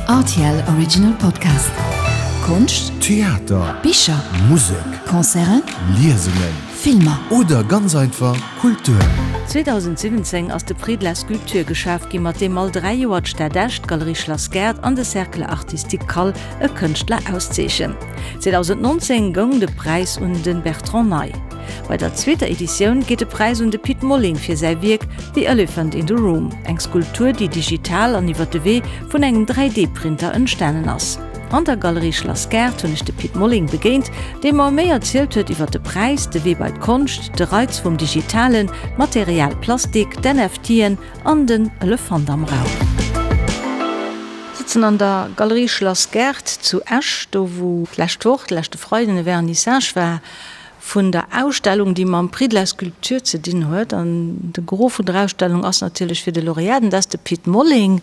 Rtl Original Podcast. Konscht, Theater, Bicher, Musek, Concerten, Liesungen Filmer. Oder ganz einfach Kultur. 2017 ass de Prix de la Sculpture geschaf ginn, mat deem all 3 Joer d'Stad Esch, d'Galerie Schlass Gaart an de Cercle Artistique Kall e Kënschtler auszeechen. 2019 goung de Präis un de Bertrand Ney. Bei der zweeter Editioun geet de Präis un de Pit Molling fir säi Wierk The Elephant in the Room, eng Skulptur, déi digital an iwwer de Wee vun engem 3D-Printer entstanen ass. An der Galerie Schlass Gaart hunn ech de Pit Molling begéint, dee mer méi erzielt huet iwwer de Präis, de Wee bei d'Konscht, de Reiz vum Digitalen, d'Material Plastik, d'NFTen an den Elefant am Raum. Sëtzen an der Galerie Schlass Gaart zu Esch, do wou d'lescht Woch, de leschte Freiden, e Vernissage war vun der Ausstellung, déi mam Prix de la Sculpture ze dinn huet. An de Gros vun der Ausstellung ass natierlech fir de Lauréat, an dat ass de Pit Molling.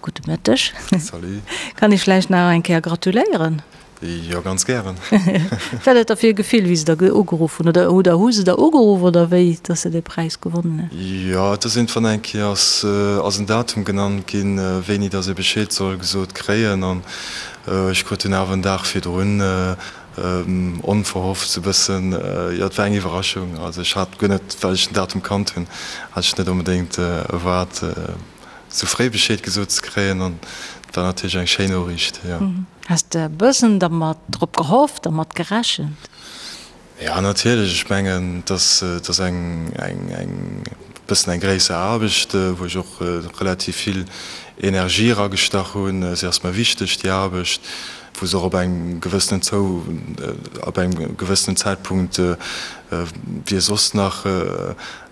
Gudde Mëtteg. Salut. Kann ech vläicht nach eng Kéier gratuléieren? Jo, ganz gären. Wat war dat da fir e Gefill, wéi se der ugeruff hunn? Oder oder hu se der ugeruff oder wéi, dass se dee Präis gewonnen hunn? Jo, et ass iergendwann eng Kéier ass ass en Datum genannt ginn, wéini dass ee Bescheed soll gesot kréien. An ech krut dunn awer en Dag virdrun Onverhofft sou bëssen, jo et war eng Iwwerraschung. Also ech hat guer net, well ech den Datum kannt hunn, hat ech net onbedéngt erwaart sou fréi Bescheed gesot ze kréien an et war natierlech eng schéin Noriicht, jo. Has de e bëssen dermat drop gehofft, dermat gerechent? Jo natierlech, ech mengen et ass et ass eng eng eng bëssen eng gréisser Aarbecht, wou ech och relativ vill Energie eragestach hunn. Si ass mer wichteg déi Aarbecht, wou se och op engem gewëssenen zou op engem gewëssenen Zäitpunkt wie soss nach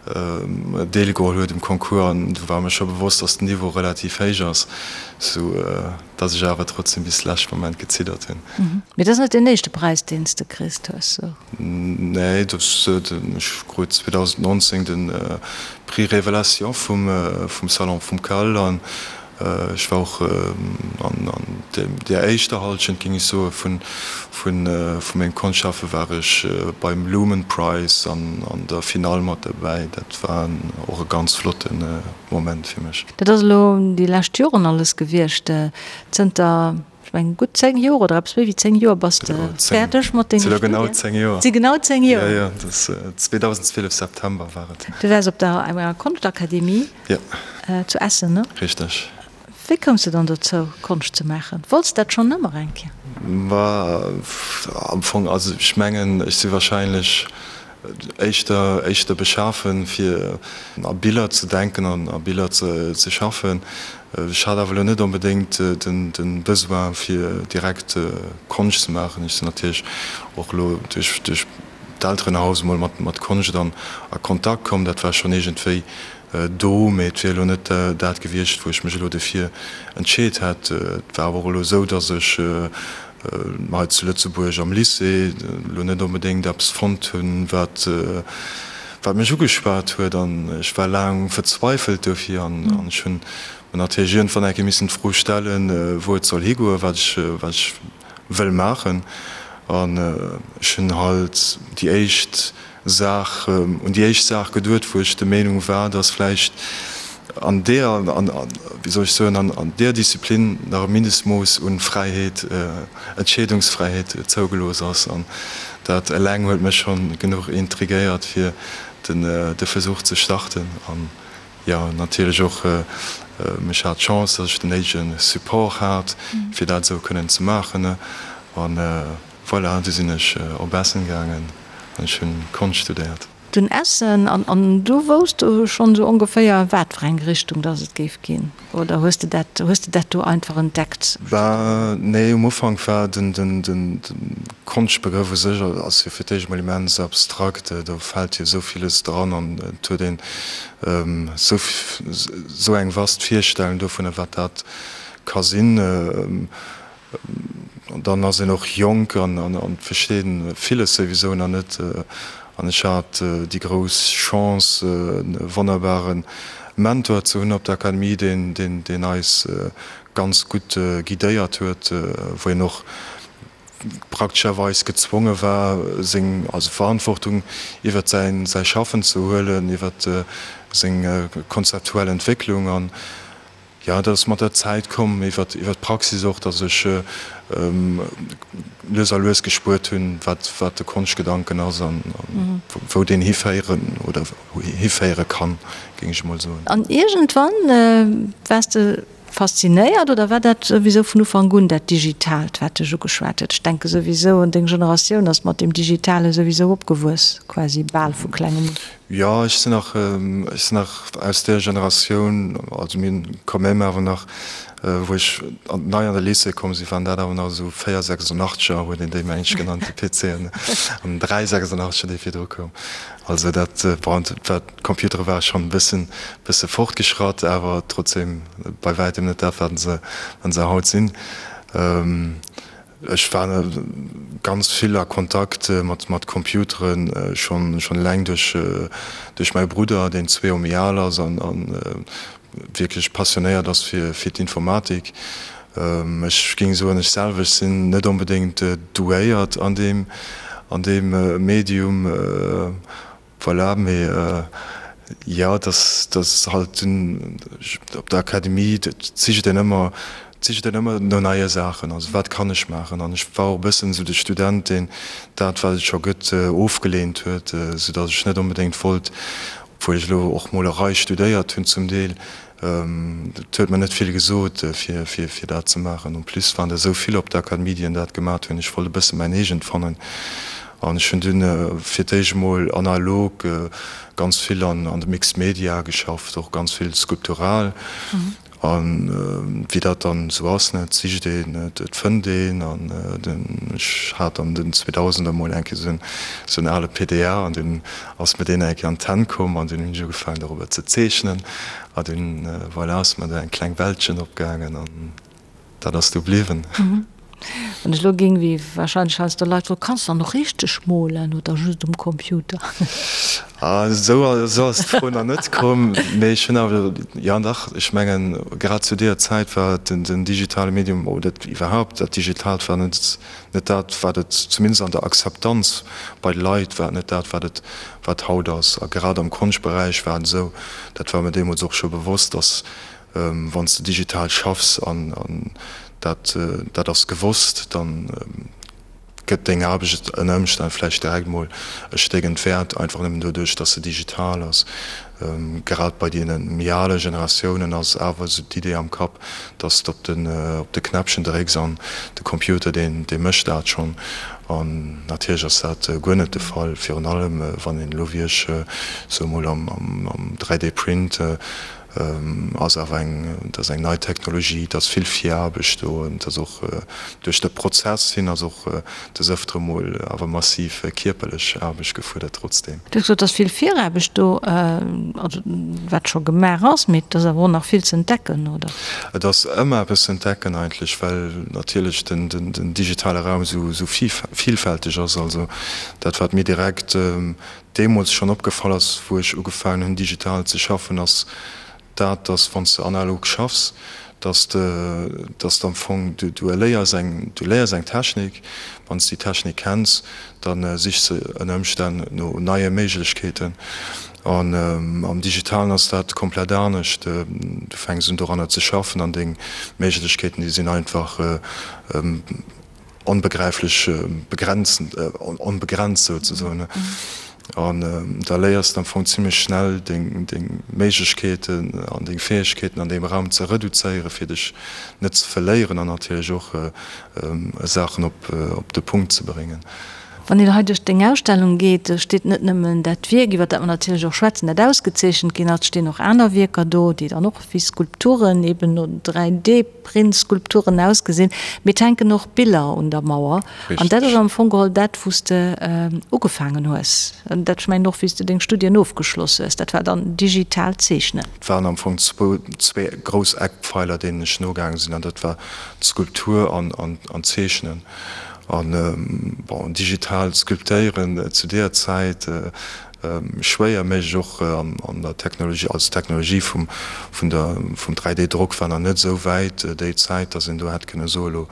deelgeholl huet um Concours an do war mir scho bewosst, datt den Niveau relativ héich ass, sou datt ech awer trotzdem bis leschte Moment geziddert hunn. Mee dat ass net deen éischte Präis, deen s de kriss hues, sou? Nee, dat ech krut 2019 de Prix Révélation vum vum Salon vum Cal an Ech war och an där éischter Halschent, géing ech soen, vu mengem Konschtschaffe war ech beim Lumen Prize an an der Finall mat derbäi. Dat war och e ganz flotte Moment fir mech. Dat ass elo déi lescht Joren alles gewiescht. Zënter, ech mengen, gutt 10 Joer oder eppes méi wéi 10 Joer bass de fäerdeg mat denge Studien. Genau 10 Joer. Et si genau 10 Joer. Jo, jo, dat ass 2012 September war et. Du waars op der enger Konschtakademie. Jo. Zu Essen, ne? Richteg. Wéi koums de dann dozou, Konscht ze maachen? Wollts de dat schonn ëmmer eng Kéier? Ma am Fong, also ech mengen, ech si wahrscheinlech éischter, éischter beschafen, fir a Biller ze denken an a Biller ze schaffen. Ech hat awer elo net onbedéngt den, de Besoin, fir direkt Konscht ze maachen. Ech sinn natierlech och elo duerch, duerch d'Elterenhaus emol mat, mat Konscht an a Kontakt komm. Dat war schonn iergendwéi do, mee et wier elo net dat gewiescht, wou ech mech elo dofir entscheet hätt. Et war awer och elo esou, datt ech hei zu Lëtzebuerg am Lycée elo net onbedéngt eppes fonnt hunn, wat wat mech ugeschwat huet an ech war laang verzweifelt dofir an ech hunn mer natierlech iergendwann eng Kéier missen d'Fro stellen, wou et soll higoen, wat ech wat ech wëll maachen. An ech hunn halt déi éischt Saach, un déi éischt Saach geduet, wou ech der Meenung war, dass vläicht an deer, wéi soll ech soen, an deer Disziplin nach e Mindestmooss un Fräiheet, Entscheedungsfräiheet zougelooss ass. An dat eleng huet mech schonn genuch intrigéiert, fir de Versuch ze starten. An jo, natierlech och, ech hat d'Chance, dass ech den néidege Support hat, fir dat esou kënnen ze maachen. An Voilà, du sinn ech op Essen gaangen an ech hunn Konscht studéiert. Dunn Essen, an an du wousst du schonn esou ongeféier wat fir eng Richtung dass et géif ginn, oder hues de dat hues de dat do einfach entdeckt? Bah nee, um Ufank war den den den Konschtbegrëff u sech ass jo fir d'éischt emol immens abstrakt, do fält jo esou villes dran an et huet een esou esou eng vast Virstellung dovunner wat dat ka sinn. An dann ass een och jonk an versteet villes souwisou nach net. An ech hat déi grouss Chance, e wonnerbare Mentor ze hunn op der Akademie, deen eis ganz gutt guidéiert huet, wou een och praktescherweis gezwonge war, seng also Verantwortung iwwert säi Schaffen ze huelen, iwwert seng konzeptuell Entwécklung. Jo, dat ass mat der Zäit komm, iwwer d'Praxis och, datt ech lues a lues gespuert hunn, wat wat de Konschtgedanken ass an wou deen hiféieren oder hiféiere kann, géing ech emol soen. An iergendwann waars de faszinéiert oder war dat souwisou vun Ufank un dat Digitaalt, wat dech ugeschwat huet? Ech denke souwisou, an deng Generatioun ass mat deem Digitale souwisou opgewuess, quasi bal vu klengem un. Jo, ech sinn nach, ech sinn nach aus där Generatioun, also mir hunn quand même awer nach, wou ech an, nei an de Lycée komm sinn, waren dat awer nach esou 486er, huet een déi meng ech genannt, déi PCen, an 386er, dee virdru koum. Also dat, bon, dat war, d'Computere ware schonn e bëssen, bësse fortgeschratt, awer trotzdem bei wäitem net dat, wat se, wat se haut sinn. Ech war ganz vill a Kontakt mat Computeren, schonn eleng duerch mäi Brudder, deen zwee Joer méi al ass an wierklech passionéiert ass fir d'Informatik. Ech géing soen, ech selwer sinn net onbedéngt douéiert an deem Medium. Voilà, mee jo, dass dass halt dunn op der Akademie, et sicht een ëmmer, et sicht een ëmmer no neie Saachen, also wat kann ech maachen? An ech war och e bëssen esou de Student, deen dat, wat et scho gëtt, ofgeleent huet, soudass ech net onbedéngt wollt, obwuel ech elo och Molerei studéiert hunn zum Deel, Et huet mer net vill gesot, fir dat ze maachen. En plus waren der esou vill op der Akademie, déi dat gemat hunn. Ech wollt e bësse mäin eegent fannen. An ech hunn dunn fir d'éischt emol analog ganz vill an de Mixed Media geschafft, och ganz vill skulptural. A wéi dat dann esou ass, ne, et sicht een, et fënnt een. An ech hat an den 2000er emol eng Kéier esou en ale PDA an dunn ass mir deen eng Kéier an d'Hänn komm an dunn hunn ech ugefaangen dorobber ze zeechnen a dunn, voilà, ass mer do eng kleng Weltchen opgaangen an dat ass du bliwwen. Wann ech elo géing, wéi wahrscheinlech heiansdo Leit froen, Kanns de dann och richteg molen oder just um Computer? Ah, esou esou ass d'Fro nach net komm, mee ech hunn awer, jo dach, ech mengen grad zu deeër Zäit war den den digitale Medium oder iwwerhaupt dat Digitaalt war net Net dat, wat et, zumindest an der Akzeptanz bei de Leit, war et net dat, wat et, wat haut ass. A grad am Konschtberäich war et esou, dat war mir deemools och scho bewosst, dass, wann s de digital schaffs an dat, dat ass gewosst, da gëtt deng Aarbecht ënner Ëmstänn vläicht direkt mol e Stéck entwäert, einfach nëmmen doduerch, dass se digital ass. Grad bei deene méi ale Generatiounen ass awer esou d'Idee am Kapp, dass de op den op de Knäppchen drécks an de Computer deen dee mécht dat schonn. An natierlech ass dat guer net de Fall, virun allem wann een elo wéi ech sou emol am am 3D Print ass awer eng dat ass eng nei Technologie, et ass vill Viraarbecht do, et ass och duerch de Prozess hin ass och des Ëftere mol awer massiv kierperlech Aarbecht gefuerdert trotzdeem. Du hues gesot, et ass vill Viraarbecht do, also wat scho gemaach ass, mee et ass awer och nach vill ze entdecken, oder? Et ass ëmmer eppes ze entdecken eigentlech, well natierlech den digitale Raum esou vielfälteg ass. Also dat wat mir direkt deemools schonn opgefall ass, wou ech ugefaangen hunn digital ze schaffen, ass dat, dass wann s de analog schaffs, dass de, dass de am Fong, du, du erléiers eng, du léiers eng Technik, wann s de déi Technik kenns, da sichs de ënner Ëmstänn no neie Méiglechkeeten. An am Digitalen ass dat komplett anescht, du fänks un doranner ze schaffen an deng Méiglechkeeten, déi sinn einfach onbegräiflech begrenzend, onbegrenzt souzesoen. An da léiers de am Fong zimlech schnell deng Méiglechkeeten an deng Fäegkeeten an deem Raum ze reduzéieren, fir dech net ze verléieren an natierlech och Saachen op de Punkt ze bréngen. Wann een hei duerch deng Ausstellung geet, do steet net nëmmen dat Wierk, iwwer dat mer natierlech och schwätzen, dat ausgezeechent ginn ass, et stinn och aner Wierker do, déi dann och wéi Skulpturen, eben no 3D. Printskulpturen ausgesinn, mee et hänken och Biller un der Mauer. An dat ass am Fong geholl dat, wou s de ugefaangen hues. An dat, ech mengen och, wéi s de deng Studien ofgeschloss hues, dat war dann digitaalt Zeechnen. Et waren am Fong zwou, zwee grouss Eckpfeiler, deenen ech nogaange sinn, an dat war d'Skulptur an d'Zeechnen. An, bon, digitaalt Sculptéieren zu deeër Zäit, Schwéier méiglech och an der Technologie, also d'Technologie vum vun der vum 3D-Drock war nach net esou wäit déi Zäit, datt een do hätt kënne soe lo.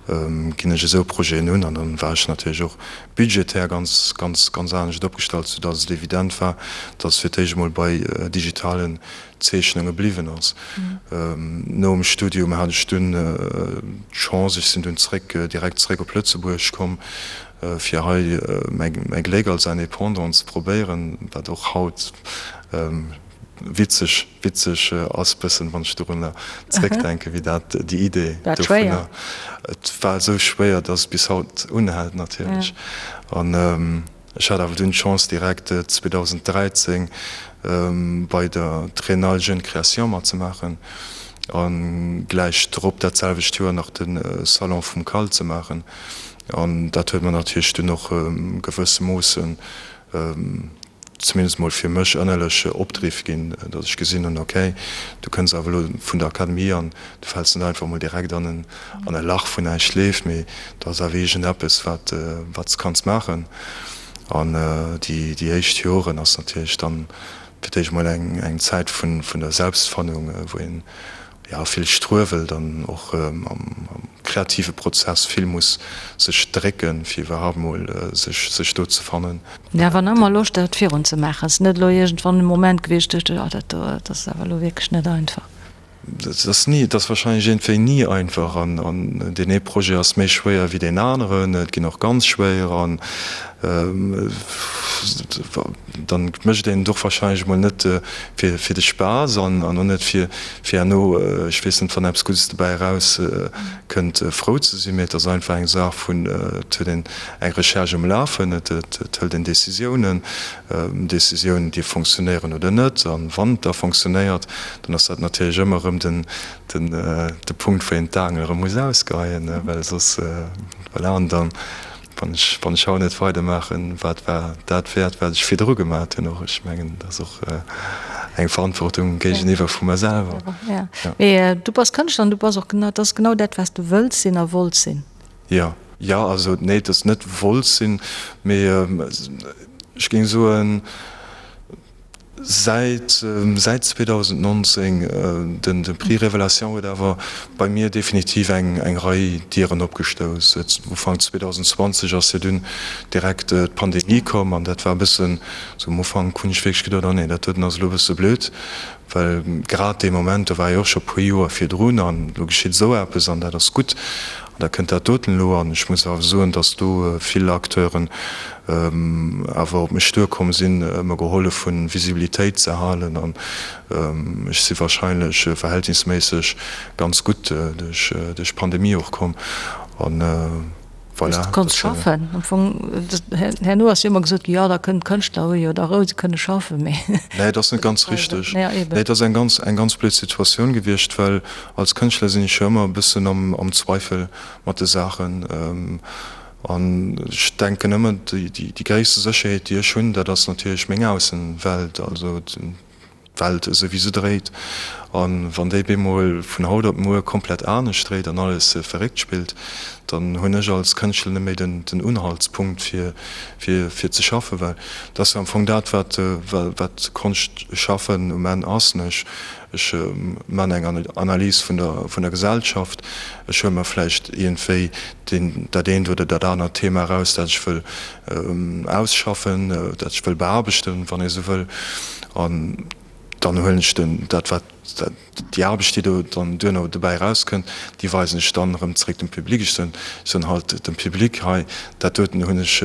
Ginn ech esou Projeten un an dann war ech natierlech och budgetär ganz, ganz, ganz anescht opgestallt, soudatt et evident war, datt et fir d'éischt emol bei digitalen Zeechnunge bliwwen ass. Nom Studium hat ech dunn d'Chance, ech sinn dunn zréck, direkt zréck op Lëtzebuerg komm, fir hei mäi Gléck als Indépendant ze probéieren, wat och haut witzeg, witzeg ass bëssen, wann ech dorunner zréckdenken, wéi dat, déi Idee dovunner, et war esou schwéier, datt et bis haut unhält natierlech. An ech hat awer dunn d'Chance direkt 2013 bei der Triennale Jeune Création matzemaachen a gläich drop dat selwecht Joer nach de Salon vum CAL ze maachen. An dat huet mer natierlech dunn och gewëssemoossen, zumindest mol fir mech ënnerlech Opdriff ginn, datt ech gesinn hunn, okay, du kënns awer elo vun der Akademie an du fäls net einfach mol direkt an en an e Lach wou näischt leeft, mee do ass awer iergendeppes wat wat s kanns maachen. An déi déi éischt Joren ass natierlech dann fir d'éischt mol eng eng Zäit vun vun der Selbstfannung, wou een jo, vill struewelt an och am kreative Prozess vill muss sech drécken, fir iwwerhaapt mol sech sech do ze fannen. Mee awer nach ëmmer Loscht dat virun ze maachen. Ass net elo iergendwann e Moment gewiescht, duecht ech, oh dat do, dat ass awer elo wierklech net einfach. Et ass ni, et ass wahrscheinlech iergendwéi ni einfach an an deen ee Projet ass méi schwéier wéi deen aneren, et ginn och ganz schwéier an Dann mécht een et och wahrscheinlech emol net fir de Spaass an och net fir herno, ech weess net, wann eppes Guddes dobäi eraus kënnt, frou ze sinn, mee et ass einfach eng Saach vun, et huet een eng Recherche um Lafen, et hëlt een Décisiounen, Décisiounen déi fonctionnéieren oder net. An wann et da fonctionnéiert, dann ass dat natierlech ëmmer erëm den de Punkt, wou een d'Aangel erëm muss ausgeheien, well soss, voilà, an dann Wann ech, wann ech haut net weidermaachen, wat war dat wäert, wat ech virdru gemaat hunn och? Ech mengen, dat ass och eng Verantwortung géigeniwwer vu mer selwer. Ja. Mee du bass Kënschtler an du bass och genau, dat ass genau dat, wat s du wëlls sinn a wollts sinn. Jo. Jo, also nee, et ass net wollt sinn, mee ech géing soen, Säit säit 2019, den de Prix Révélation huet awer bei mir definitiv eng eng Rei Dieren opgestouss. Ufank 2020 ass jo dunn direkt d'Pandemie komm an dat war e bëssen, sou am Ufank hunn ech wierklech geduet, oh nee, dat doten ass elo e bësse blöd, well grad dee Moment, do war jo och scho puer Joer virdrun an elo geschitt esou eppes an dat ass gutt an da kënnt dat doten elo. An ech muss awer soen, datt do vill Acteuren awer op mech duerkomm sinn, mer gehollef hunn, Visibilitéit ze halen an ech si wahrscheinlech verhältnisméisseg ganz gutt duerch d'Pandemie och komm an voilà. Du konns schaffen am Fong. Herno ass jo ëmmer gesot ginn, jo da kënnen d'Kënschtler hu jo da Rou, se kënne schaffen, mee. Nee, dat ass net ganz richteg. Nee, dat ass eng ganz, eng ganz blöd Situatioun gewiescht, well als Kënschtler sinn ech jo ëmmer e bëssen am Zweifel mat de Saachen. An ech denken ëmmer, déi gréisste Sécherheet, déi ech hunn, dat ass natierlech meng Aussenwelt, also d'Welt esou wéi se dréit. A wann déi bemol vun haut op muer komplett anescht dréit an alles verréckt spillt, dann hunn ech als Kënschtler net méi den Unhaltspunkt fir fir ze schaffen, well dat ass jo am Fong dat, wat wat Konschtschaffen um Enn ass. Ech man eng Analys vun der vun der Gesellschaft. Ech huele mer vläicht iergendwéi deen dat eent oder dat anert Thema eraus, dat ech wëll ausschaffen, dat ech wëll beaarbechten, wann ee sou wëll. An dann huelen ech den dat wat déi Aarbecht, déi do dann duerno dobäi erauskënnt, déi weisen ech dann erëm zeréck dem Public. Ech soen ech soen halt dem Public, hei dat doten hunn ech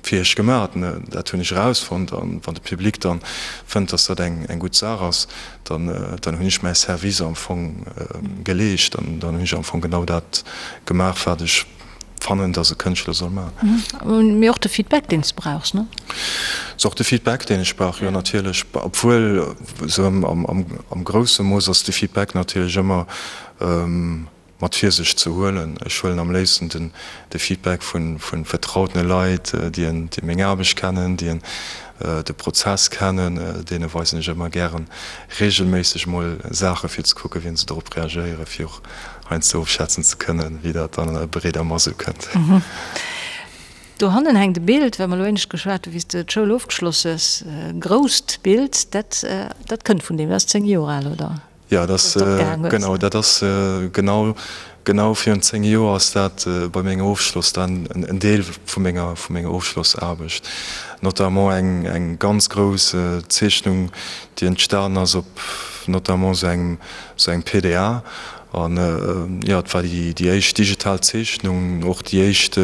fir iech gemaat, dat hunn ech erausfonnt, an wann de Public dann fënnt, dass dat eng eng gutt Saach ass, dann dann hunn ech mäi Service am Fong geleescht, dann dann hunn ech am Fong genau dat gemaach, wat ech fannen, dass e Kënschtler soll maachen. Mee och de Feedback, deen s de brauchs, ne? Ass och de Feedback, deen ech brauch, jo natierlech, obwuel esou am am am grousse Mooss ass de Feedback natierlech ëmmer mat Virsicht ze huelen. Ech huelen am léifsten den de Feedback vu vu vertrautene Leit, déi déi meng Aarbecht kennen, déi de Prozess kennen. Deene weisen ech ëmmer gären reegelméisseg mol Saache fir ze kucken, wéi se dorop reagéieren, fir och heiansdo ofschätzen ze kënnen, wéi dat dann an der breeder Mass ukënnt. Dohannen hänkt e Bild, well mer elo éinescht geschwat hu wéi s de d'Schoul ofgeschloss hues, e grousst Bild, dat dat kënnt vun deem, dat ass 10 Joer al, oder? Jo, dat ass, genau, dat ass genau, genau virun 10 Joer ass dat bei mengem Ofschloss dann en Deel vu menger, vu menger Ofschlossaarbecht. Notamment eng, eng ganz grouss Zeechnung, déi entstanen ass op notamment esou engem, esou engem PDA. An jo, et war déi, déi éischt digital Zeechnung, och déi éischt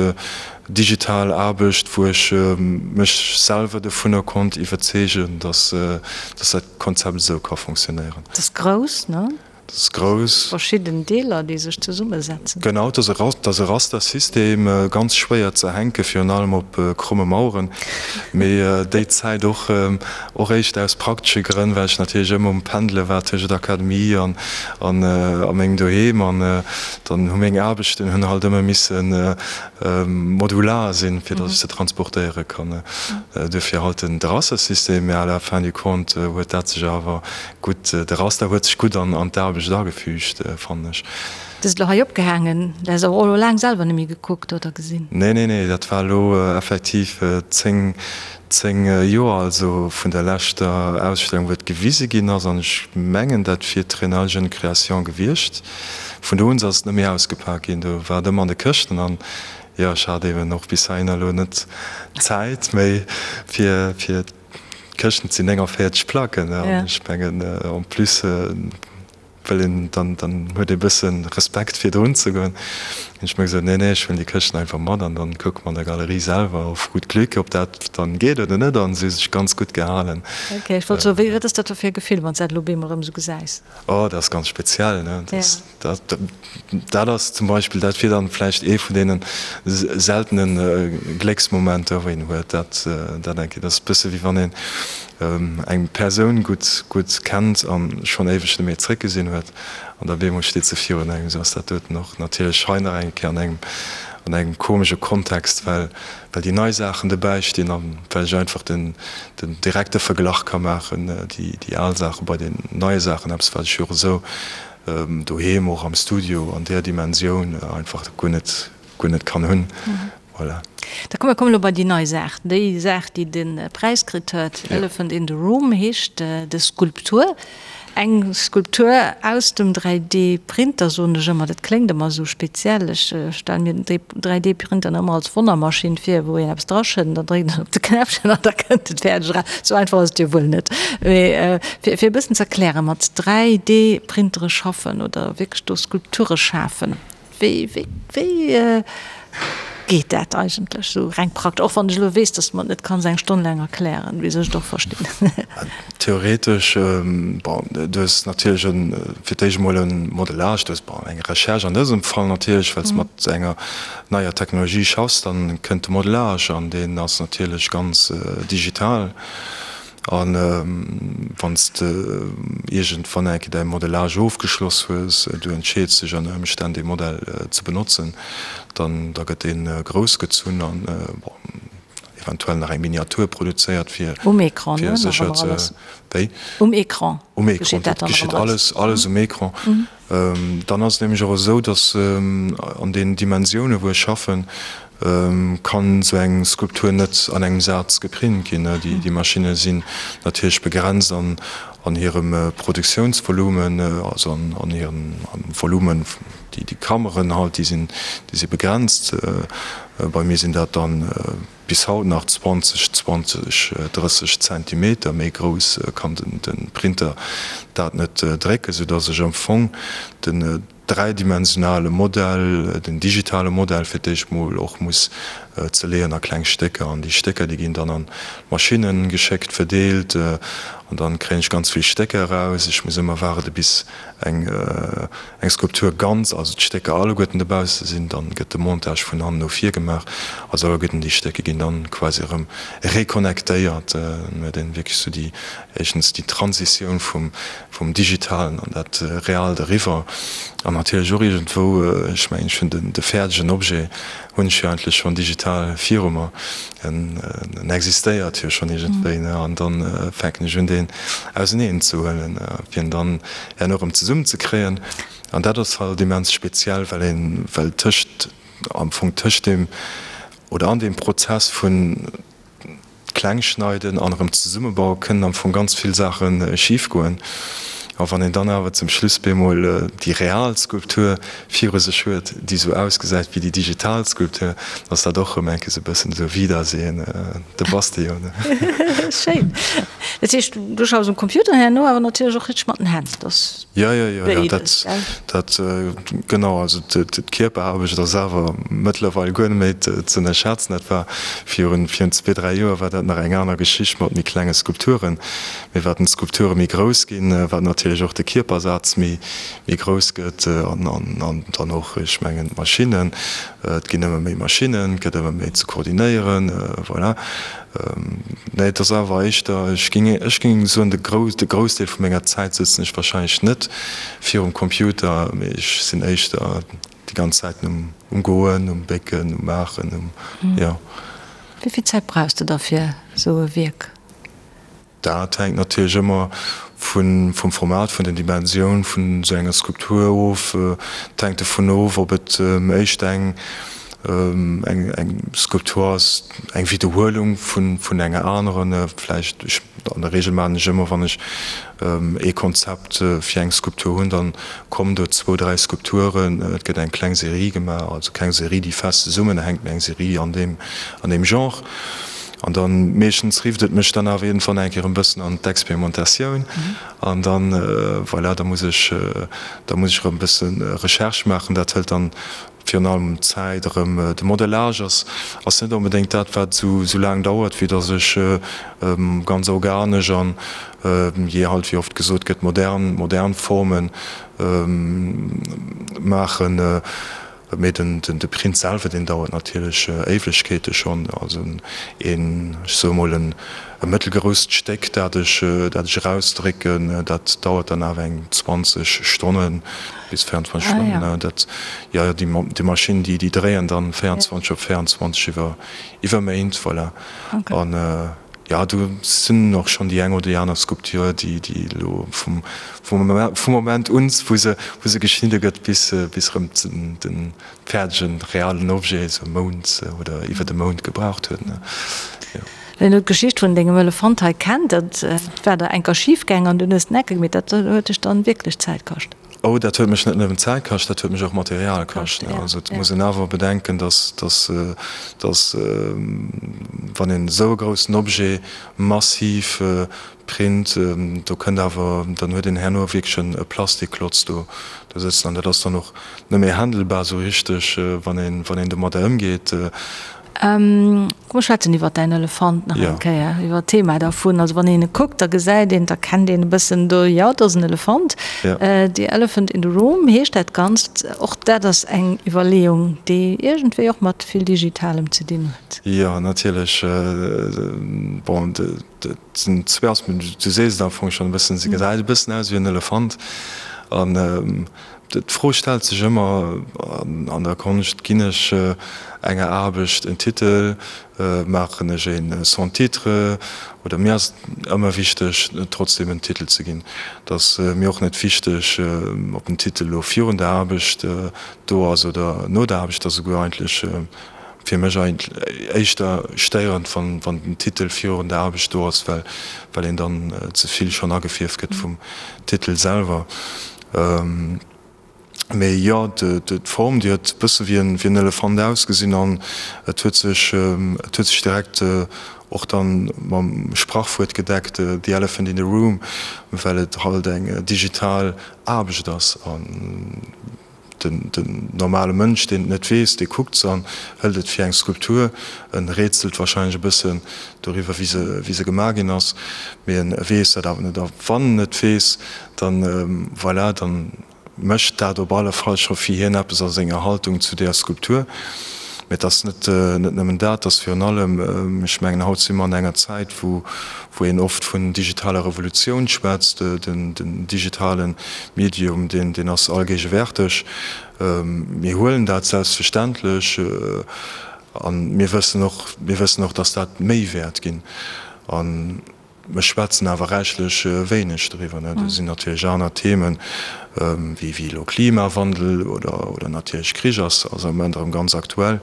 digital Aarbecht, wou ech mech selwer dovunner konnt iwwerzeegen, dass, dass dat Konzept esou ka fonctionnéieren. Dat ass grouss, ne? Dat ass grouss. Verschidden Deeler, déi sech zesummesetzen. Genau, dat ass e Rastersystem, ganz schwéier ze hänken, virun allem op kromme Maueren. Mee déi Zäit och, och éischter aus praktesche Grënn, well ech natierlech ëmmer um Pendele war tëschent Akademie an a mengem Doheem. An dann hu meng Aarbechten hunn halt ëmmer misse modular sinn, fir datt ech se transportéiere kann. Duerfir halt den Rastersystem, mä à la fin du compte huet dat sech awer gutt, de Raster huet sech gutt an d'Aarbecht agefügt, fannen ech. Du hues elo hei opgehaangen, du has awer och elo laang selwer net méi gekuckt oder gesinn? Nee, nee, nee, dat war elo effektiv 10, 10 Joer, also vun der leschter Ausstellung, wou et gewise ginn ass, an ech mengen, dat wier d'Triennale Jeune Création gewiescht. Vun do un ass et net méi ausgepak ginn, do war et ëmmer an de Këschten an jo, ech hat eben och bis heihinner elo net d'Zäit méi fir fir d'Këschten, et sinn 49 Placken an ech mengen en plus wëll een dann, dann huet ee bësse Respekt fir drun ze goen. Hunn ech mir gesot, nee nee, ech huelen déi Këschten einfach mat an dann kucke mer an der Galerie selwer auf gut Glück, ob dat dann geet oder net an se hu sech ganz gutt gehalen. Ok, ech wollt soen, wéi, wat ass dat da fir e Gefill, wann s dat elo op eemol erëm esou gesäis? Oh, dat ass ganz speziell, ne? Dat, dat, dat ass zum Beispill, dat wier dann vläicht ee vun deene seltene Glécksmomenter, wou een huet. Dat, dat eng Kéier, dat ass e bësse wéi wann een eng Persoun gutt, gutt kennt a schonn éiweg net méi zréckgesinn huet an da bemol steet se virun engem. Esou ass dat doten och natierlech hei nach eng Kéier an engem, an engem komesche Kontext, well well déi nei Saachen dobäi stinn a well ech einfach den den direkte Verglach ka maachen, déi déi al Saache bei den neie Saachen, eppes wat ech jo och esou doheem och am Studio an där Dimensioun einfach guer net guer net kann hunn. Voilà. Da komm, mir kommen elo bei déi nei Saach, déi Saach déi de Präis kritt huet, Elephant in the Room heescht des Skulptur. Eng Skulptur aus dem 3D-Printer, soen ech ëmmer. Dat kléngt ëmmer esou speziell. Ech stelle mir den 3D-Printer ëmmer als Wonnermaschinn vir, wou een eppes draschëtt an da dréckt een op de Knäppchen an da kënnt et fäerdeg eraus. Esou einfach ass et jo wuel net. Mee fir e bëssen ze erklären, mat 3D-Printere schaffen oder wierklech do Skulpture schafen, Wéi, wéi, wéi geet dat eigentlech esou reng praktesch? Och wann ech elo weess, dass de mer et net kanns eng Stonn laang erklären, wéi soll ech et och verstinn? Theoretesch, bon, du hues natierlech e fir d'éischt emol e Modellage, du hues, bon, eng Recherche an dësem Fall natierlech, well s de mat enger neier Technologie schaffs, dann kënnt de Modellage an deen ass natierlech ganz digital. A wann s de iergendwann eng Kéier däi Modellage ofgeschloss hues, du entscheeds dech ënner Ëmstänn dee Modell ze benotzen, dann da gëtt dee grouss gezunn an bon eventuell nach eng Miniatur produzéiert fir Um Ecran, ne? Nach sécher ëmmer ze alles. Wéi? Um Ecran Um Ecran, geschitt dat dat dann nach geschitt ëmmer alles. alles alles um Ecran. Dann ass et nämlech och esou, datt an den Dimensioune wou ech schaffen, kann esou eng Skulptur net an engem Saz geprint ginn. Déi Maschinne sinn natierlech begrenzt an hirem Produktiounsvolumen, also an hirem Volumen, déi Kammeren halt, déi sinn déi si begrenzt. Bei mir sinn dat dann bis haut nach 20, 20, 30 Zentimeter, méi grouss kann de Printer dat net drécken, soudass ech am Fong den dräidimensionale Modell, den digitale Modell fir d'éischt mol och muss zerleeën a kleng Stécker. An déi Stécker, déi ginn dann an d'Maschinne geschéckt, verdeelt an dann kréien ech ganz vill Stécker eraus. Ech muss ëmmer waarde bis eng eng Skulptur ganz, also d'Stécker alleguerten dobausse sinn, dann gëtt de Montage vun hannen no vir gemaach, also alleguerten déi Stécker ginn dann quasi erëm reconnectéiert, dann huet een wierklech sou déi, éischtens déi Transitioun vum vum Digitalen an dat Realt eriwwer an natierlech och iergendwou, ech mengen ech hunn den de fäerdegen Objet hunn ech jo eigentlech schonn digital viru mer, en en existéiert jo schonn iergendwéi, ne, an dann fänken ech un deen auseneen ze huelen, fir en dann herno erëm zesummen ze kréien an dat ass halt immens speziell, well een, well tëscht, am Fong tëscht deem oder an deem Prozess vun Klengschneiden an erëm zesummebauen kënnen am Fong ganz vill Saache schif goen. A wann een dann awer zum Schluss bemol déi real Skulptur viru sech huet, déi esou ausgesäit wéi déi digital Skulptur, dann ass dat och erëm eng Kéier esou e bëssen esou Wiedersehen, de bass de jo, ne? Schéin. Dat heescht, du schaffs um Computer herno, awer natierlech och richteg mat den Hänn, dat ass Jo, jo, jo, jo, dat, dat, genau. Also d'Kierperaarbecht ass awer mëttlerweil guer net méi ze ënnerschätzen. Dat war virun, virun zwee, dräi Joer war dat nach eng aner Geschicht mat méi klenge Skulpturen. Mee wat d'Skulpture méi grouss ginn, wat natierlech och de Kierpersaz méi, méi grouss gëtt an, an, an dann och, ech mengen, d'Maschinnen, et ginn ëmmer méi Maschinnen, et gëtt ëmmer méi ze koordinéieren, voilà. Nee, et ass awer éischter, ech géing, ech géing soen, de Gros, de Groussdeel vu menger Zäit sëtzen ech wahrscheinlech net virum Computer, mee ech sinn éischter déi ganz Zäit um, um Goen, um Bécken, um Maachen, um, jo. Wéi vill Zäit brauchs de da fir esou e Wierk? Dat hänkt natierlech ëmmer vum Format, vun den Dimensioun vun esou enger Skulptur of. Et hänkt dovun of, ob et éischt eng Skulptur ass, eng Widderhuelung vun enger aneren. Vläicht, an der Reegel maachen ech ëmmer, wann ech ee Konzept fir eng Skulptur hunn, da kommen do zwou, dräi Skulpturen. Et gëtt eng kleng Serie gemaach, also keng Serie, déi fest zesummenhänkt, mee eng Serie an deem Genre. An dann meeschtens rifft et mech dann awer iergendwann eng Kéier en bëssen an d'Experimentatioun an dann, voilà, da muss ech, da muss ech erëm e bësse Recherche maachen. Dat hëlt dann virun allem Zäit erëm. De Modellage ass, ass net onbedéngt dat, wat esou, esou laang dauert, vue dass ech ganz organesch an, jee halt, wéi oft gesot gëtt, modern, modern Formen maachen. Mee den de Print selwer, deen dauert natierlech Éiwegkeete schonn. Also een, ech soe mol en e mëttelgrousst Stéck, dat ech dat ech erausdrécken, dat dauert dann awer eng 20 Stonnen bis 24 Stonnen. Dat, jo, jo, déi Maschinn, déi déi dréien dann 24 op 24 iwwer iwwer Méint, voilà. An jo, do sinn och schonn déi eng oder déi aner Skulptur, déi déi elo vum Vum Moment un, wou se wou se geschnidde gëtt, bis bis erëm den fäerdegen, realen Objet, esou Mount oder iwwer e Mount gebraucht huet, ne? Jo. Ween elo d'Geschicht vun dengem Elefant hei kennt, dat war der enker schif gaang an dunn hues de en Ecke gemeet, dat huet dech dann wierklech Zäit kascht. Oh, dat huet mech net nëmmen Zäit kascht, dat huet mech och Material kascht, ne? Also et muss een awer bedenken, dass dass dass wann een esou e groussen Objet massiv Print, do kënnt awer, dann huet een herno wierklech e Plastikklotz do do sëtzen an dat ass dann och net méi handelbar esou richteg, wann een, wann een domadder ëmgeet. Komm mer schwätzen iwwer däin Elefant nach eng Kéier, iwwer d'Thema dervun. Also wann een e kuckt, da gesäit een, da kennt een e bëssen do, jo, dat ass en Elefant. The Elephant in the Room heescht dat Ganzt. Och dat ass eng Iwwerleeung, déi iergendwéi och mat vill Digitalem ze dinn huet. Jo, natierlech. Bon, Et sinn zwee Aspekten, du sees et am Fong schonn e bëssen, se gesäit e bëssen aus wéi en Elefant. An d'Fro stellt sech ëmmer an der Konscht, Ginn ech enger Aarbecht en Titel, maachen ech een sans titre? Oder mir ass et ëmmer wichteg, trotzdeem en Titel ze ginn. Et ass mir och net wichteg, ob den Titel elo virun der Aarbecht do ass oder no der Aarbecht. Et ass esouguer eigentlech Fir mech éischter stéierend, wann den Titel virun der Aarbecht do ass, well een dann ze vill schonn agefierft gëtt vum Titel selwer. Mee jo, d'Form, déi huet e bësse wéi en Elefant ausgesinn an et huet sech, et huet sech direkt och dann mam Sprachwuert gedeckt, the elephant in the room, well et halt eng digital Aarbecht ass. Den normale Mënsch, deen et net weess, dee kuckt se an hëlt et fir eng Skulptur. En rätselt wahrscheinlech e bëssen doriwwer, wéi se, wéi se gemaach ginn ass, mee en weess dat awer net. A wann en et weess, dann, voilà, dann mécht dat op alle Fall scho fir hien eppes a senger Haltung zu deeër Skulptur. Mee et ass net, net nëmmen dat, et ass virun allem, ech mengen, haut si mer an enger Zäit, wou, wou een oft vun digitaler Revolutioun schwätzt, den digitale Medium, deen ass allgéigewärteg. Mir huelen dat selbstverständlech a mir wëssen och, mir wëssen och, dass dat méi wäert ginn. A mir schwätzen awer räichlech wéineg driwwer. Do sinn natierlech aner Themen, wéi elo Klimawandel oder natierlech Krich ass am Moment erëm ganz aktuell.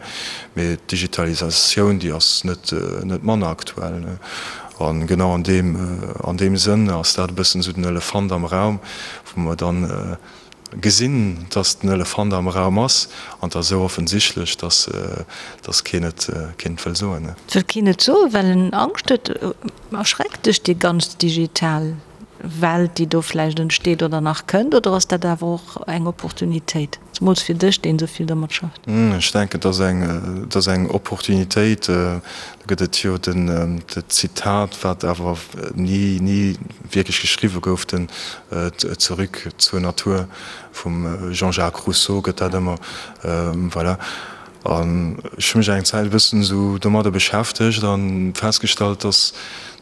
Mee d'Digitalisatioun, déi ass net manner aktuell. A genau an deem, an deem Sënn ass dat e bëssen esou den Elefant am Raum, wou mer dann gesinn, dass den Elefant am Raum ass, an et ass esou offensichtlech, dass, dass keen et, keen et wëll soen. Et wëll keen et soen, well en Angscht huet. Erschreckt dech déi ganz digital Welt, déi do vläicht entsteet oder nach kënnt, oder ass dat awer och eng Opportunitéit, zemools fir dech, deen esou vill domat schafft? Ech denken, et ass eng, et ass eng Opportunitéit. Do gëtt et jo den, d'Zitat, wat awer ni, ni wierklech geschriwwe gouf, den Zurück zur Natur vum Jean-Jacques Rousseau gëtt dat ëmmer, voilà. An ech hu mech eng Zäit e bëssen esou domadder beschäftegt a festgestallt, dass,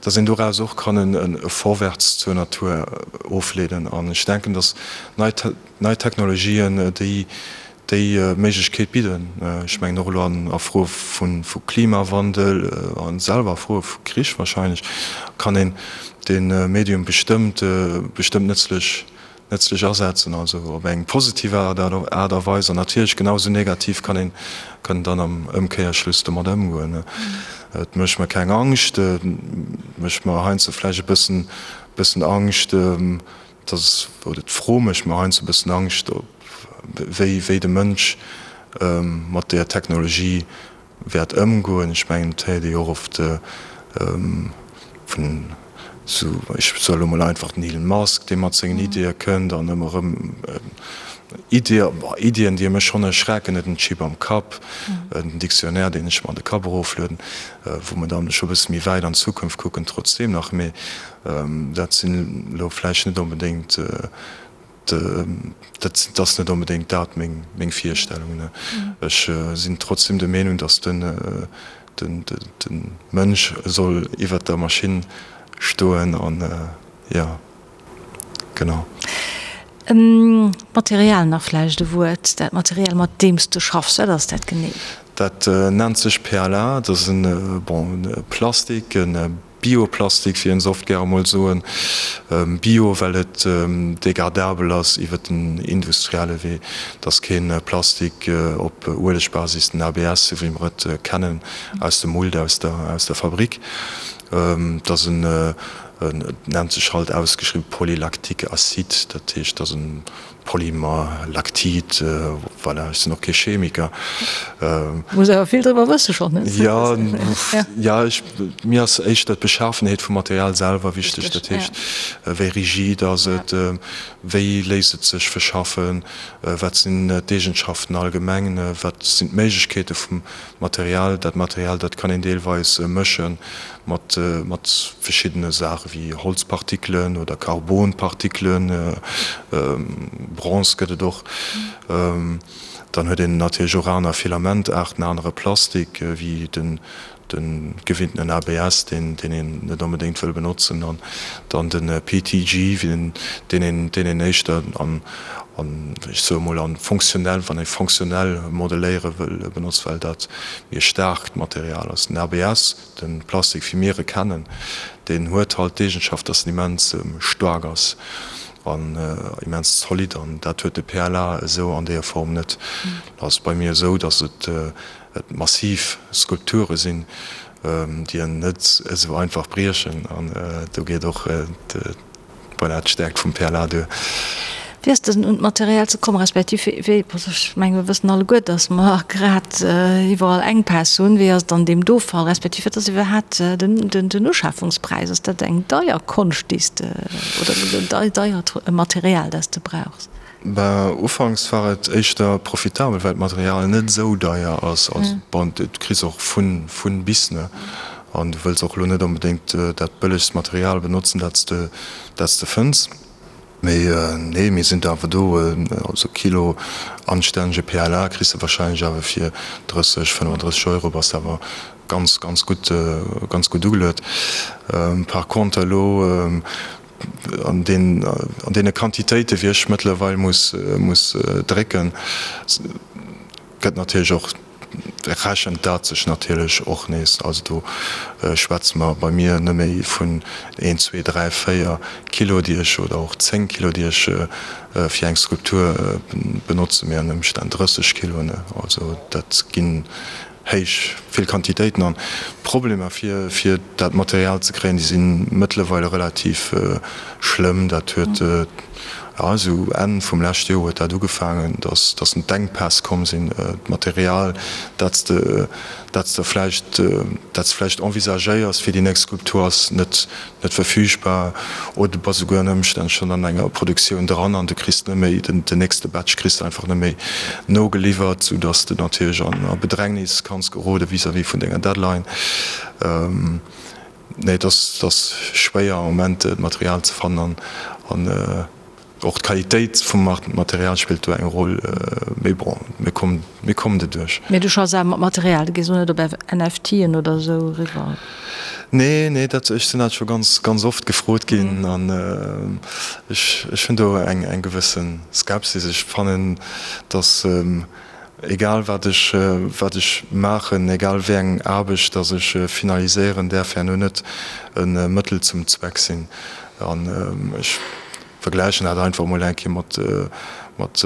dass een doraus och kann e Vorwärts zur Natur ofleeden. An ech denken, dass nei, nei Technologien déi, déi Méiglechkeet bidden. Ech mengen och elo an a Froe vu, vu Klimawandel a selwer a Froe vu Krich wahrscheinlech kann een dee Medium bestëmmt, bestëmmt nëtzlech nëtzlech asetzen, also op eng positiv Aart a Weis, an natierlech genau esou negativ kann een kann dann am Ëmkéierschluss domat ëmgoen. Et mécht mer keng Angscht, et mécht mer heiansdo vläicht e bëssen bëssen Angscht, dass, oder d'Fro mécht mer heiansdo e bëssen Angscht, ob wéi wéi de Mënsch mat där Technologie wäert ëmgoen. Ech mengen, et héiert ee jo och oft vun esou, ech soe elo mol einfach, den Elon Musk, dee mat sengen Ideeë kënnt an ëmmer erëm Ideeë, bon, Ideeën, déi mech schonn erschrecken, net den Chip am Kapp, den Dictionnaire, deen ech mer an de Kapp eroflueden, wou mer dann scho e bësse méi wäit an d'Zukunft kucken, trotzdeem nach. Mee dat sinn elo vläicht net onbedéngt Dat ass net onbedéngt dat meng Virstellung. Ech sinn trotzdem der Meenung, datt de Mënsch soll iwwert der Maschinn stoen an jo, genau. D'Material nach vläicht e Wuert. Dat Material, mat deem s de schaffs, wat ass dat genee? Dat nennt sech PLA. Dat ass e, bon, e Plastik, e Bioplastik, wéi een se oft gäre mol soen. Bio, well et degradabel ass iwwer den industrielle Wee. Et ass kee Plastik op Uelegbasis, den ABS, esou wéi mer et kennen aus dem Mould, aus der, aus der Fabrik. Et ass en, et nennt sech halt ausgeschriwwen Polylactique acide, dat heescht, et ass en Polymer, Lactid, voilà, ech sinn och kee Chemiker. Muss awer vill driwwer wësse schonn, ne? Jo, jo, ech, mir ass éischter d'Beschafenheet vum Material selwer wichteg, dat heescht, wéi rigid ass et, wéi léisst et sech verschaffen, wat sinn d'Eegenschaften allgemeng, wat sinn d'Méiglechkeete vum Material. Dat Material, dat kann een deelweis mësche mat mat verschiddene Saache wéi Holzpartikelen oder Carbonpartikelen, Bronze gëtt et och. Dann huet een natierlech och aner Filamentaarten, anere Plastik wéi den de gewinntenen ABS, deen deen een net onbedéngt wëll benotzen, an dann de PETG, deen een deen een éischter an an ech soe mol an fonctionnel, wann ee fonctionnel modelléiere wëll, benotzt, well dat méi e staarkt Material ass. Den ABS, de Plastik wéi mir e kennen, deen huet halt d'Eegenschaft, dass en immens staark ass an immens zolidd an dat huet de PLA esou an deeër Form net. Et ass bei mir esou, dass et et massiv Skulpture sinn, déi en net esou einfach briechen an do geet och Voilà, d'Stäerkt vum PLA duer. Wéi ass dësen un d'Material ze kommen, respektiv wéi, ech menge mir wëssen alleguer, datt mer grad iwwerall Enkpäss hunn, wéi ass et an deem do Fall, respektiv wat ass iwwerhaat den Uschafungspräis? Ass dat eng deier Konscht, déi s de, oder deiert Material, dat s de brauchs? Ben, ufanks war et éischter profitabel, well d'Material net esou deier ass. Also, bon, du kriss och vun, vun bis, ne? An du wëlls och elo net onbedéngt dat bëllegst Material benotzen, dat s de, dat s de fënns. Mee nee, mir sinn awer do, also Kilo anstännege PLA kriss de wahrscheinlech awer fir 30, 35 Euro, bass de awer ganz, ganz gutt, ganz gutt ugeluet. Par contre elo, An deene Quantitéite wéi ech mëttlerweil muss drécken, gëtt natierlech och, rechent dat sech natierlech och nees. Also do schwätze mer bei mir net méi vun een, zwee, dräi, véier Kilo déi ech, oder och 10 Kilo déi ech fir eng Skulptur benotzen, mee an Ëmstänn 30 Kilo. Also dat ginn héich vill Quantitéiten an. D'Problemer fir fir dat Material ze kréien, déi si mëttlerweile relativ schlëmm. Dat huet, jo, esou Enn vum leschte Joer huet dat ugefaangen, datt datt d'Enkpäss komm sinn. D'Material, dat s de dat s de vläicht dat s de vläicht envisagéiers fir déi nächst Skulptur, ass net net verfügbar oder du bass esouguer ënner Ëmstänn schonn an enger Produktioun dran an du kriss net méi den nächste Batch kriss de einfach net méi nogeliwwert, sou dass de natierlech an a Bedrängnis kanns gerode vis-à-vis vun denger Deadline. Nee, et ass et ass schwéier am Moment Material ze fannen an an. Och d'Qualitéit vum Material spillt do eng Roll, mee bon, mir kommen, mir kommen doduerch. Mee du schaffs awer mat Material, du gees elo net op NFTen oder esou eriwwer? Nee, nee, dat, ech sinn dat scho ganz, ganz oft gefrot ginn an ech, ech hunn do eng, eng gewësse Skepsis. Ech fannen, datt egal wat ech, wat ech maachen, egal wéi eng Aarbecht datt ech finaliséieren, däerf herno net e Mëttel zum Zweck sinn. An ech vergläichen dat einfach emol eng Kéier mat, mat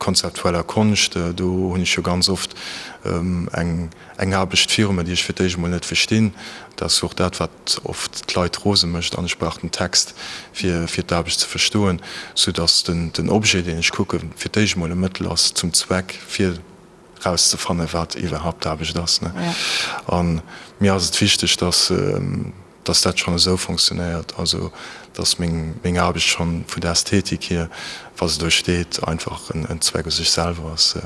konzeptueller Konscht. Do hunn ech jo ganz oft eng, eng Aarbecht viru mir, déi ech fir d'éischt emol net verstinn. Dat ass jo och dat, wat oft d'Leit rose mécht. An ech brauch den Text, fir, fir d'Aarbecht ze verstoen, soudass den, den Objet, deen ech kucken, fir d'éischt emol e Mëttel ass zum Zweck, fir erauszefannen, wat iwwerhaupt d'Aarbecht ass. A mir ass et wichteg, dass, dass dat schonn esou fonctionnéiert, also dass meng meng Aarbecht schonn vun der Ästhetik hier, wa se do steet, einfach en Zweck u sech selwer ass,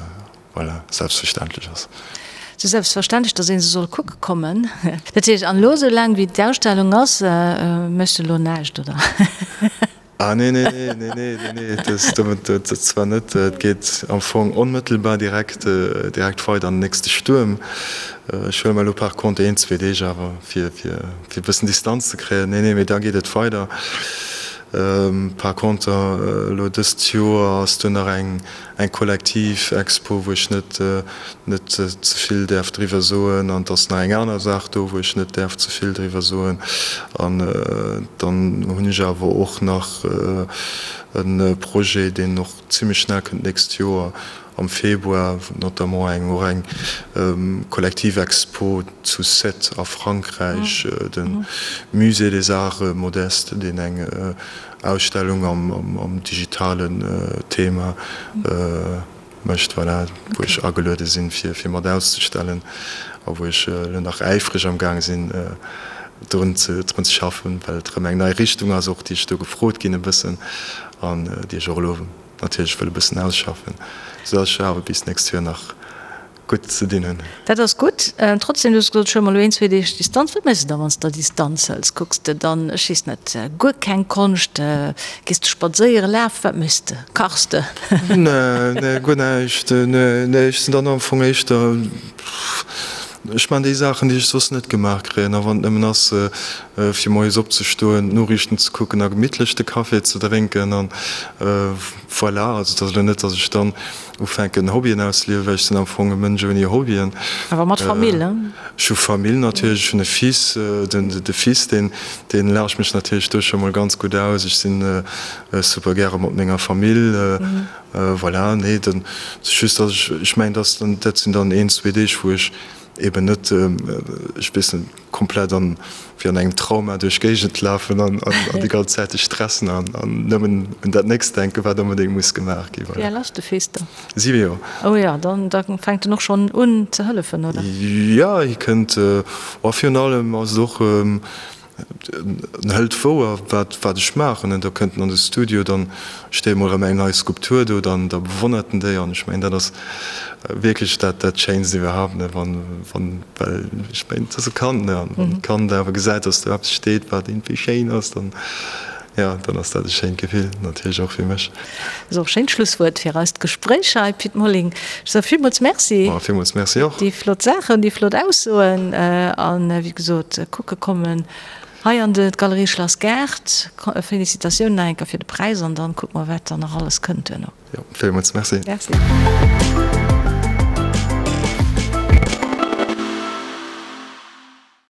voilà, selbstverständlech ass. Sou selbstverständlech, dass ee se soll kucke kommen. Dat heescht, an elo esou laang wéi d'Ausstellung ass, méchs de elo näischt, oder? Ah nee, nee, nee, nee, nee, nee, nee, dat, dat, dat zwar net. Et geet am Fong onmëttelbar direkt, direkt weider an den nächste Stuerm. Ech huele mer elo par contre een, zwee Deeg awer, fir, fir, fir e bëssen Distanz ze kréien. Nee, nee, mee da geet et weider. Par contre, elo dëst Joer ass do nach eng, eng kollektiv Expo, wou ech net, net ze vill däerf driwwer soen an et ass nach eng aner Saach do, wou ech net däerf ze vill driwwer soen. An dann hunn ech awer och nach e Projet, deen och zimlech schnell kënnt, d'nächst Joer am Februar, notamment eng och eng kollektiv Expo zu Sète a Frankräich, de Musée des Arts Modestes, deen eng Ausstellung am digitalen Thema mécht, voilà, wou ech ageluede sinn, fir mat auszestellen a wou ech elo nach äifreg am Gaang sinn, drun ze schaffen, well et erëm eng nei Richtung ass och, déi ech do gefrot ginn e bëssen an déi ech och elo natierlech wëll e bëssen ausschaffen, soudass ech awer bis d'nächst Joer nach gutt ze dinn hunn. Dat ass gutt. Trotzdem, du hues gesot, ech huele mer elo een, zwee Deeg Distanz. Wat méchs de da, wann s de Distanz hëls? Kucks de dann, ech weess net, guer keng Konscht? Gees de spadséieren, lafen? Wat méchs de? Kachs de? Nee, nee, guer näischt. Nee, nee, ech sinn dann am Fong éischter, ech man déi Saachen, déi ech soss net gemaach kréien. A wann et nëmmen ass, fir moies opzestoen, d'Noriichten ze kucken a gemittlech de Café ze drénken an voilà. Also et ass elo net, datt ech dann Ufänken Hobbyen ausliewen, well ech sinn am Fong e Mënsch ouni Hobbyen. Awer mat Famill, ne? Ech hu Famill natierlech, ech hunn e Fils, den de Fils deen deen laacht mech natierlech do scho mol ganz gutt aus. Ech sinn super gäre mat menger Famill, voilà. Nee, dann just datt ech, ech mengen datt dann dat sinn dann een, zwee Deeg wou ech eben net, ech weess net, komplett an wéi an engem Trauma duerch d'Géigend lafen an déi ganz Zäit sech stressen an nëmmen un dat nächst denken, wat onbedéngt muss gemaach ginn. Wéi al ass de Fils dann? 7 Joer. Oh jo, dann da fänkt en och schonn un ze hëllefen, oder? Jo, hie kënnt, oh virun allem ass et och, En hëlt wouer, wat, wat ech maachen. En, da kënnt en an de Studio, dann steet emol erëm eng nei Skulptur do, dann, da bewonnert en déi. An ech mengen, dat ass wierklech dat, dat Schéinst iwwerhaapt, ne, wann, wann, well ech mengen, et ass e Kand, ne, an wann d'Kand awer gesäit, dass do eppes steet, wat iergendwéi schéin ass, dann, jo, dann ass dat e schéint Gefill, natierlech och fir mech. Ass och e schéint Schlusswuert fir eist Gespréich hei, Pit Molling. Ech soe villmools Merci. Ma villmools Merci och. Déi flott Saachen, déi flott Aussoen an, wéi gesot, kucke kommen hei an de d'Galerie Schlass Gaart. Félicitatiounen nach eng Kéier fir de Präis an dann kucke mer, wat dann nach alles kënnt duerno. Jo, villmools Merci. Merci.